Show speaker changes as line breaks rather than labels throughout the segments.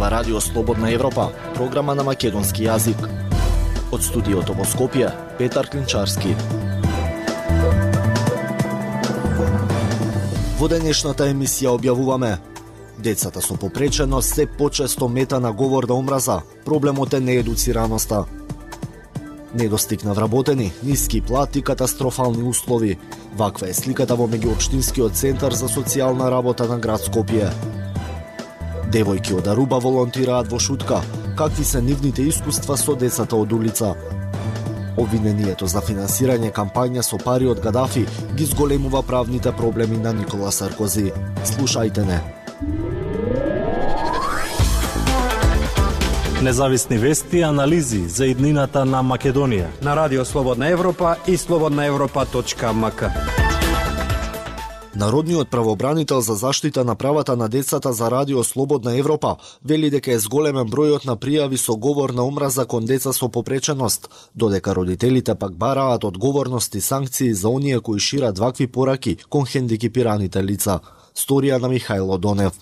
ова Радио Слободна Европа, програма на македонски јазик. Од студиото во Скопје, Петар Клинчарски. Во денешната емисија објавуваме: децата со попреченост се почесто мета на говор на омраза, проблемот е неедуцираноста. Недостиг на вработени, ниски плати, катастрофални услови. Ваква е сликата во меѓуопштинскиот центар за социјална работа на град Скопје. Девојки од Аруба волонтираат во Шутка. Какви се нивните искуства со децата од улица? Обвинението за финансирање кампања со пари од Гадафи ги зголемува правните проблеми на Никола Саркози. Слушајте не.
Независни вести и анализи за иднината на Македонија
на Радио Слободна Европа и slobodnaevropa.mk.
Народниот правобранител за заштита на правата на децата за Радио Слободна Европа вели дека е зголемен бројот на пријави со говор на омраза кон деца со попреченост, додека родителите пак бараат одговорност и санкции за оние кои шират вакви пораки кон хендикепираните лица. Сторија на Михајло Донев.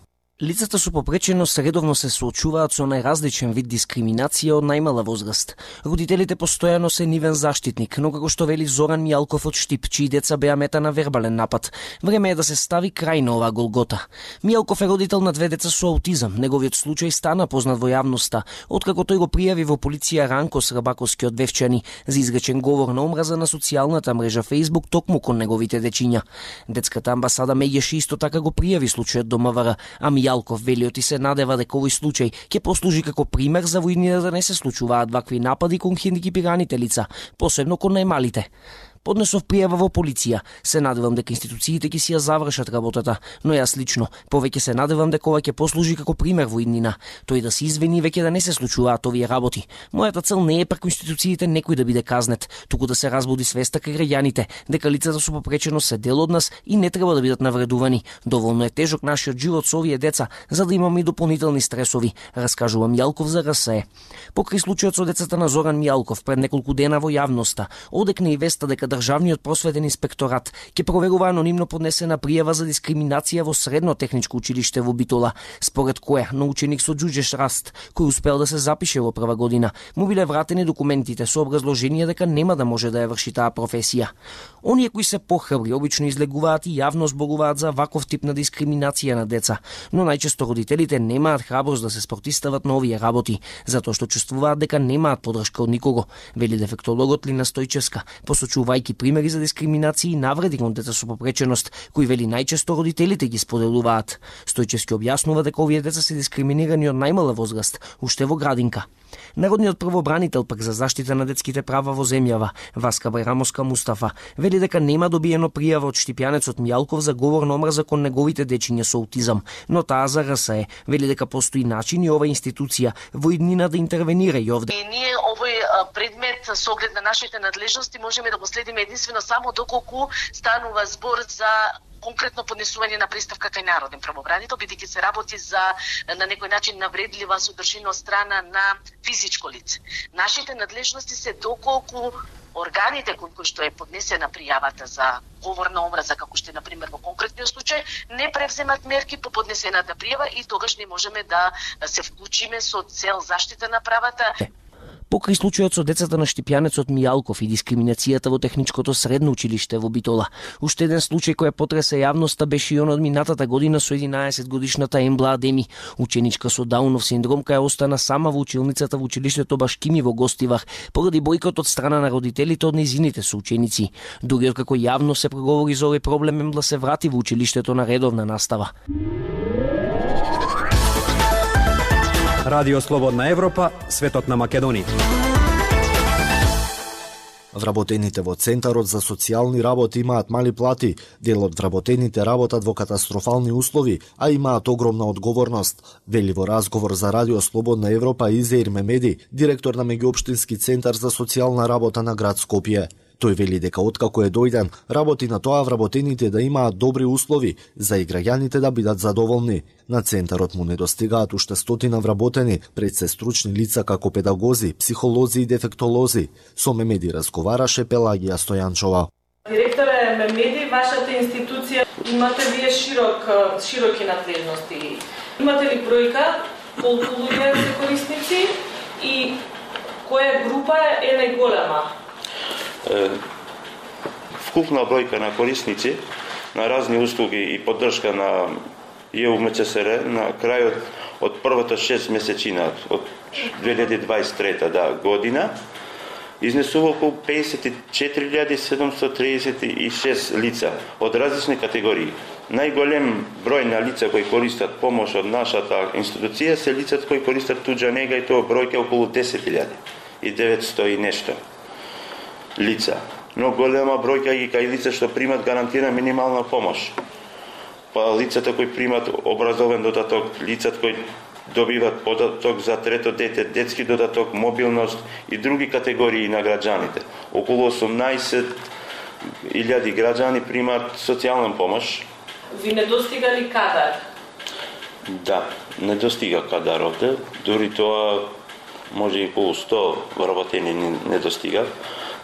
Лицата со попреченост редовно се соочуваат со најразличен вид дискриминација од најмала возраст. Родителите постојано се нивен заштитник, но како што вели Зоран Мијалков од Штип, чии деца беа мета на вербален напад, време е да се стави крај на оваа голгота. Мијалков е родител на 2 деца со аутизам. Неговиот случај стана познат во јавноста, откако тој го пријави во полиција Ранко Срабаковски од Вевчани за изречен говор на омраза на социјалната мрежа Facebook токму кон неговите дечиња. Детската амбасада Меѓеши исто така го пријави случајот до МВР, а Мијалков велиот и се надева дека овој случај ќе послужи како пример за во иднина да не се случуваат вакви напади кон хендикепираните лица, посебно кон најмалите. Поднесов пријава во полиција. Се надевам дека институциите ќе си ја завршат работата, но јас лично повеќе се надевам дека ова ќе послужи како пример во иднина. Тој да се извини веќе да не се случуваат овие работи. Мојата цел не е преку институциите некој да биде казнет, туку да се разбуди свеста кај граѓаните дека лицата со попреченост се дел од нас и не треба да бидат навредувани. Доволно е тежок нашиот живот со овие деца, за да имаме и дополнителни стресови, раскажува Мијалков за РСЕ. Покрај случајот со децата на Зоран Мијалков пред неколку дена во јавноста, одекна и веста дека Државниот просветен инспекторат ќе проверува анонимно поднесена пријава за дискриминација во Средно техничко училиште во Битола, според која на ученик со џуџеш раст, кој успел да се запише во прва година, му биле вратени документите со образложение дека нема да може да ја врши таа професија. Оние кои се похрабри обично излегуваат и јавно зборуваат за ваков тип на дискриминација на деца, но најчесто родителите немаат храброст да се спротивстават на овие работи, затоа што чувствуваат дека немаат подршка од никого, вели дефектологот Лина Стојчевска, посочувајќи примери за дискриминација и навреди кон деца со попреченост, кои вели најчесто родителите ги споделуваат. Стојчевски објаснува дека овие деца се дискриминирани од најмала возраст, уште во градинка. Народниот правобранител пак за заштита на детските права во земјава, Васка Бајрамовска Мустафа, вели дека нема добиено пријава од штипјанецот Мијалков за говор на омраза кон неговите дечиња со аутизам, но таа за РСЕ вели дека постои начин и ова институција во иднина да интервенира и овде.
И ние овој предмет со оглед на нашите надлежности можеме да го следиме единствено само доколку станува збор за конкретно поднесување на представка кај народен правобранител, бидејќи се работи за на некој начин навредлива содржина од страна на физичко лице. Нашите надлежности се доколку органите кои што е поднесена пријавата за говор на омраза, како што е например во конкретниот случај, не превземат мерки по поднесената пријава и тогаш не можеме да се вклучиме со цел заштита на правата.
Покрај случајот со децата на штипјанецот Мијалков и дискриминацијата во техничкото средно училиште во Битола, уште еден случај кој потресе јавноста беше и он од минатата година со 11 годишната Ембла Адеми, ученичка со Даунов синдром која остана сама во училницата во училиштето Башкими во Гостивар поради бојкот од страна на родителите од нејзините соученици. Дури откако јавно се проговори за овој проблем, Ембла се врати во училиштето на редовна настава.
Радио Слободна Европа, светот на Македонија.
Вработените во Центарот за социјални работи имаат мали плати, дел од вработените работат во катастрофални услови, а имаат огромна одговорност, вели во разговор за Радио Слободна Европа Изеир Мемеди, директор на Меѓуопштински центар за социјална работа на град Скопје. Тој вели дека откако е дојден, работи на тоа вработените да имаат добри услови за и граѓаните да бидат задоволни. На центарот му недостигаат уште 100 вработени, пред се стручни лица како педагози, психолози и дефектолози. Со Мемеди разговараше Пелагија Стојанчова.
Директоре Мемеди, вашата институција имате вие широки надлежности. Имате ли бројка колку луѓе се корисници и која група е најголема?
Вкупна бројка на корисници на разни услуги и поддршка на ЕУМЧСР на крајот од првата 6 месечина од 2023 година изнесува околу 54.736 лица од различни категории. Најголем број на лица кои користат помош од нашата институција се лицата кои користат туѓа нега и тоа бројка околу 10.900 и нешто лица. Но голема бројка ги кај лица што примат гарантирана минимална помош. Па лицата кои примат образовен додаток, лицата кои добиват додаток за трето дете, детски додаток, мобилност и други категории на граѓаните. Околу 18.000 граѓани примат социјална помош.
Ви недостига ли кадар?
Да, недостига кадар овде. Дури тоа може и околу 100 вработени недостига.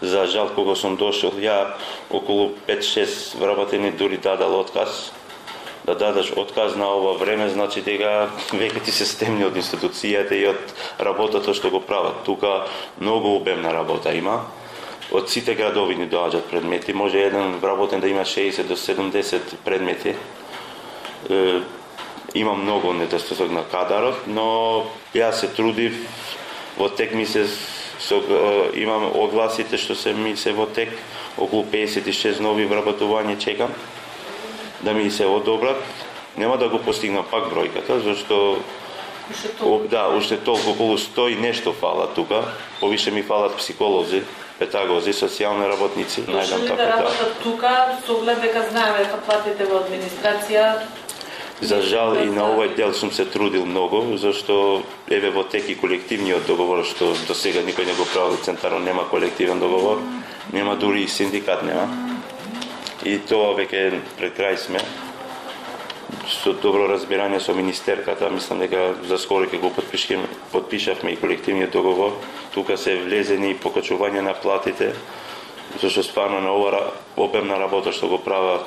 За жал, кога сум дошол, ја околу 5-6 вработени дури дадал отказ. Да дадаш отказ на ова време, значи дека веќе ти се стемни од институцијата и од работата што го прават. Тука многу обемна работа има. Од сите градови ни доаѓаат предмети. Може еден вработен да има 60 до 70 предмети. Има многу недостаток на кадарот, но ја се трудив во тек месец. Имам огласите што се во тек, околу 56 нови вработувања чекам да ми се одобрат. Нема да го постигнам пак бројката, зашто уште толку околу 100 и нешто фала тука. Повише ми фалат психолози, педагози, социјални работници.
Најдам така да работат тука, со оглед дека знаеме дека платите во администрација.
За жал и на овој дел сум се трудил многу, зашто еве во тек и колективниот договор што до сега никој не го прави центарно, нема колективен договор, нема дури и синдикат нема. И тоа веќе пред крај сме. Со добро разбирање со министерката, мислам дека за скоро ќе го подпишавме и колективниот договор. Тука се влезени и покачување на платите, зашто стварно на ова обемна работа што го прават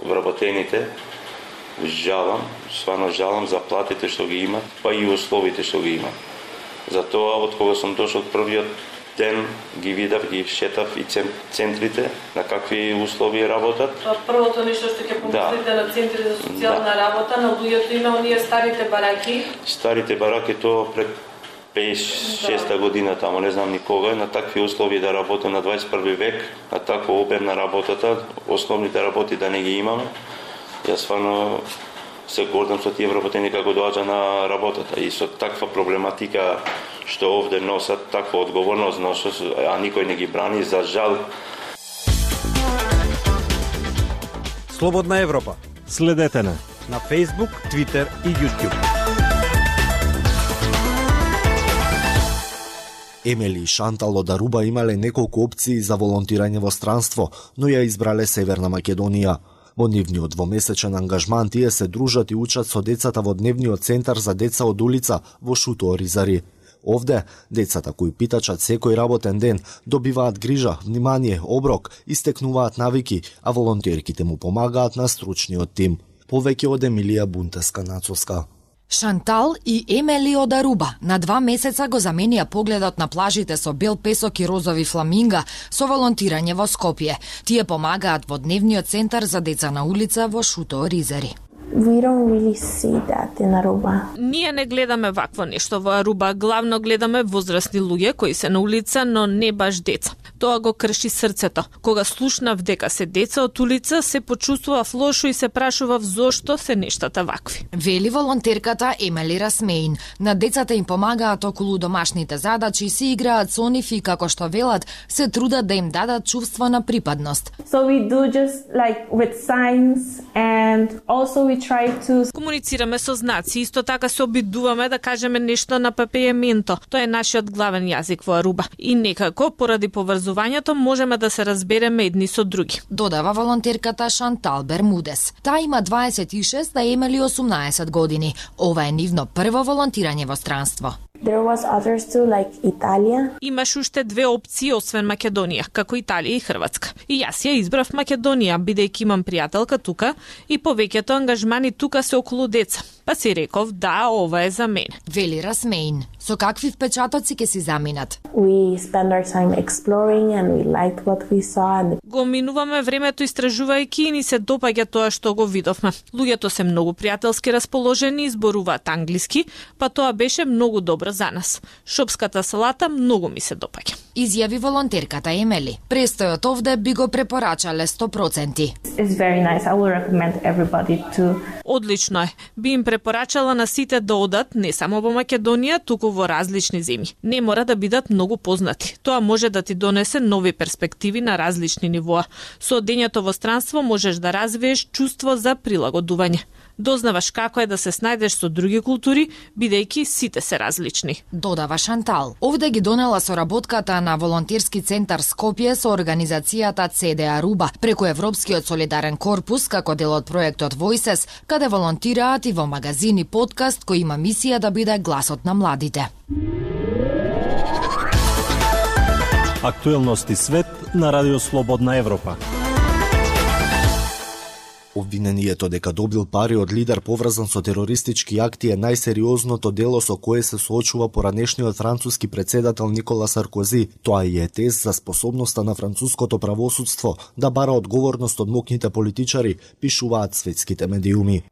вработените, жалам за платите што ги имат, па и условите што ги имат. Затоа, од кога сум дошол првиот ден, ги видав, ги шетав и центрите, на какви услови работат.
Првото нешто што ќе помислите на центри за социјална работа, на луѓето има оние старите бараки. Старите
бараки, тоа пред 5-6 година тамо, не знам никога, на такви услови да работам на 21 век, на таква обемна работата, основните работи да не ги имаме. Јас стварно се гордам со тие вработени како доаѓа на работата и со таква проблематика што овде носат, таква одговорност носат, а никој не ги брани, за жал.
Слободна Европа.
Следете на
Facebook, Twitter и YouTube.
Емели и Шантал од Аруба имале неколку опции за волонтирање во странство, но ја избрале Северна Македонија. Во нивниот двомесечен ангажман тие се дружат и учат со децата во дневниот центар за деца од улица во Шуто Оризари. Овде, децата кои питачат секој работен ден, добиваат грижа, внимание, оброк, истекнуваат навики, а волонтерките му помагаат на стручниот тим. Повеќе од Емилија Бунтеска-Нацовска.
Шантал и Емели од Аруба на 2 месеца го заменија погледот на плажите со бел песок и розови фламинга со волонтирање во Скопје. Тие помагаат во дневниот центар за деца на улица во Шуто Оризари.
We don't really see that in Aruba.
Ние не гледаме вакво нешто во Аруба, главно гледаме возрастни луѓе кои се на улица, но не баш деца. Тоа го крши срцето. Кога слушнав дека се деца од улица, се почувствував лошо и се прашував зошто се нештата вакви.
Вели волонтерката Емели Расмеин. На децата им помагаат околу домашните задачи, си играат со нив и како што велат, се трудат да им дадат чувство на припадност.
So we do just like with signs and also we try to...
Комуницираме со знаци, исто така се обидуваме да кажеме нешто на папејаменто. Тоа е нашиот главен јазик во Аруба. И некако, поради поврзувањето, можеме да се разбереме едни со други.
Додава волонтерката Шантал Бермудес. Таа има 26, да Емели 18 години. Ова е нивно прво волонтирање во странство.
There was others too, like Italia.
Имаш уште две опции освен Македонија, како Италија и Хрватска. И јас ја избрав Македонија, бидејќи имам пријателка тука и повеќето ангажмани тука се околу деца. Па си реков, да, ова е за мене.
Вели Расмеин. Со какви впечатоци ќе си заминат?
We spend our time exploring and we liked what we saw. And...
Го минуваме времето истражувајќи и ни се допаѓа тоа што го видовме. Луѓето се многу пријателски расположени, зборуваат англиски, па тоа беше многу добро за нас. Шопската салата многу ми се допаѓа.
Изјави волонтерката Емели. Престојот овде би го препорачале 100%.
It's very nice. I will recommend everybody to...
Одлично е. Би им препорачала на сите да одат не само во Македонија, туку во различни земји. Не мора да бидат многу познати. Тоа може да ти донесе нови перспективи на различни нивоа. Со одењето во странство можеш да развиеш чувство за прилагодување. Дознаваш како е да се снајдеш со други култури, бидејќи сите се различни.
Додава Шантал. Овде ги донела соработката на волонтерски центар Скопје со организацијата CDA Руба преку Европскиот солидарен корпус како дел од проектот Voices, каде волонтираат и во магазин и подкаст кој има мисија да биде гласот на младите.
Актуелности свет на Радио Слободна Европа.
Обвинението дека добил пари од лидер поврзан со терористички акти е најсериозното дело со кое се соочува поранешниот француски председател Никола Саркози. Тоа и е тест за способноста на француското правосудство да бара одговорност од мокните политичари, пишуваат светските медиуми.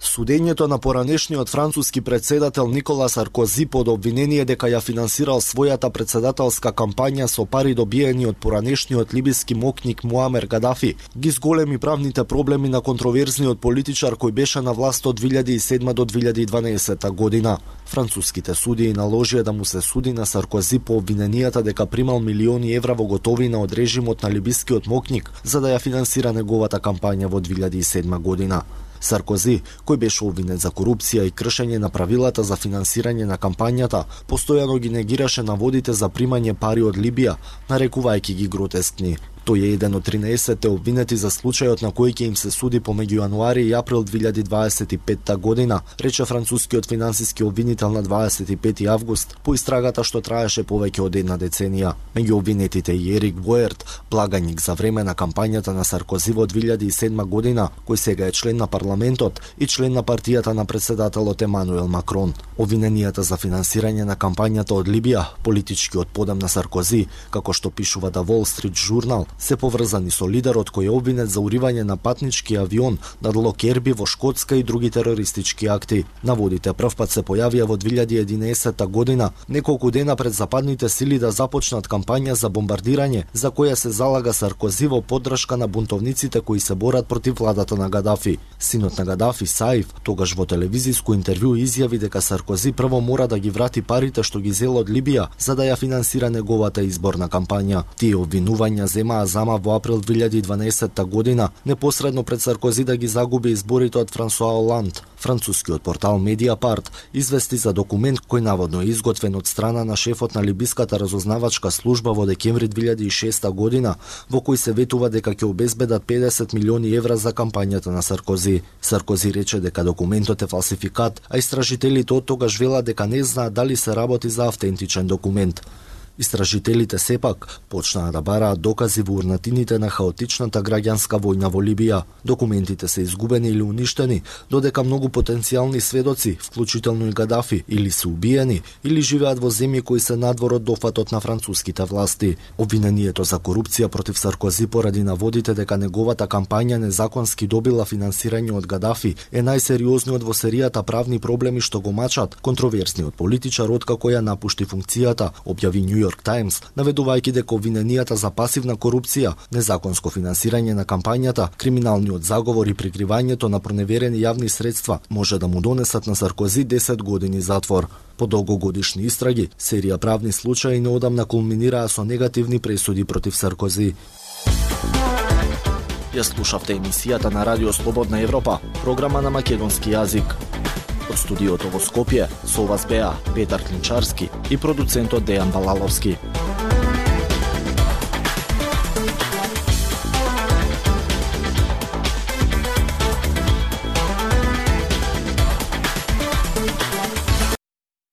Судењето на поранешниот француски председател Никола Саркози под обвинение дека ја финансирал својата председателска кампања со пари добиени од поранешниот либиски мокник Муамер Гадафи ги зголеми правните проблеми на контроверзниот политичар кој беше на власт од 2007 до 2012 година. Француските судии наложија да му се суди на Саркози по обвиненијата дека примал милиони евра во готовина од режимот на либискиот мокник за да ја финансира неговата кампања во 2007 година. Саркози, кој беше обвинет за корупција и кршење на правилата за финансирање на кампањата, постојано ги негираше наводите за примање пари од Либија, нарекувајќи ги гротескни. Тој е еден од 13 обвинети за случајот на кој ќе им се суди помеѓу јануари и април 2025 година, рече францускиот финансиски обвинител на 25 август по истрагата што траеше повеќе од една деценија. Меѓу обвинетите и Ерик Боерт, благаник за време на кампањата на Саркози во 2007 година, кој сега е член на парламентот и член на партијата на председателот Емануел Макрон. Обвиненијата за финансирање на кампањата од Либија, политичкиот подем на Саркози, како што пишува The Wall Street Journal, се поврзани со лидерот кој е обвинет за уривање на патнички авион над Локерби во Шкотска и други терористички акти. Наводите првпат се појавија во 2011 година, неколку дена пред западните сили да започнат кампања за бомбардирање, за која се залага Саркози во поддршка на бунтовниците кои се борат против владата на Гадафи. Синот на Гадафи, Саиф, тогаш во телевизиско интервју изјави дека Саркози прво мора да ги врати парите што ги зел од Либија за да ја финансира неговата изборна кампања. Тие обвинувања земаа зама во април 2012 година, непосредно пред Саркози да ги загуби изборите од Франсуа Оланд. Францускиот портал Медиапарт извести за документ кој наводно е изготвен од страна на шефот на либиската разузнавачка служба во декември 2006 година, во кој се ветува дека ќе обезбедат 50 милиони евра за кампањата на Саркози. Саркози рече дека документот е фалсификат, а истражителите од тогаш велат дека не знаат дали се работи за автентичен документ. Истражителите сепак почнаа да бараат докази во урнатините на хаотичната граѓанска војна во Либија. Документите се изгубени или уништени, додека многу потенцијални сведоци, вклучително и Гадафи, или се убиени, или живеат во земји кои се надвор од дофатот на француските власти. Обвинението за корупција против Саркози поради наводите дека неговата кампања незаконски добила финансирање од Гадафи е најсериозниот во серијата правни проблеми што го мачат контроверзниот политичар откако ја напушти функцијата, објави New York Times, наведувајќи дека обвиненијата за пасивна корупција, незаконско финансирање на кампањата, криминалниот заговор и прикривањето на проневерени јавни средства може да му донесат на Саркози 10 години затвор. По долгогодишни истраги, серија правни случаи неодамна кулминираа со негативни пресуди против Саркози. Ја слушавте емисијата на Радио Слободна Европа, програма на македонски јазик. Од студиото во Скопје со вас беа Петар Клинчарски и продуцентот Дејан Балаловски.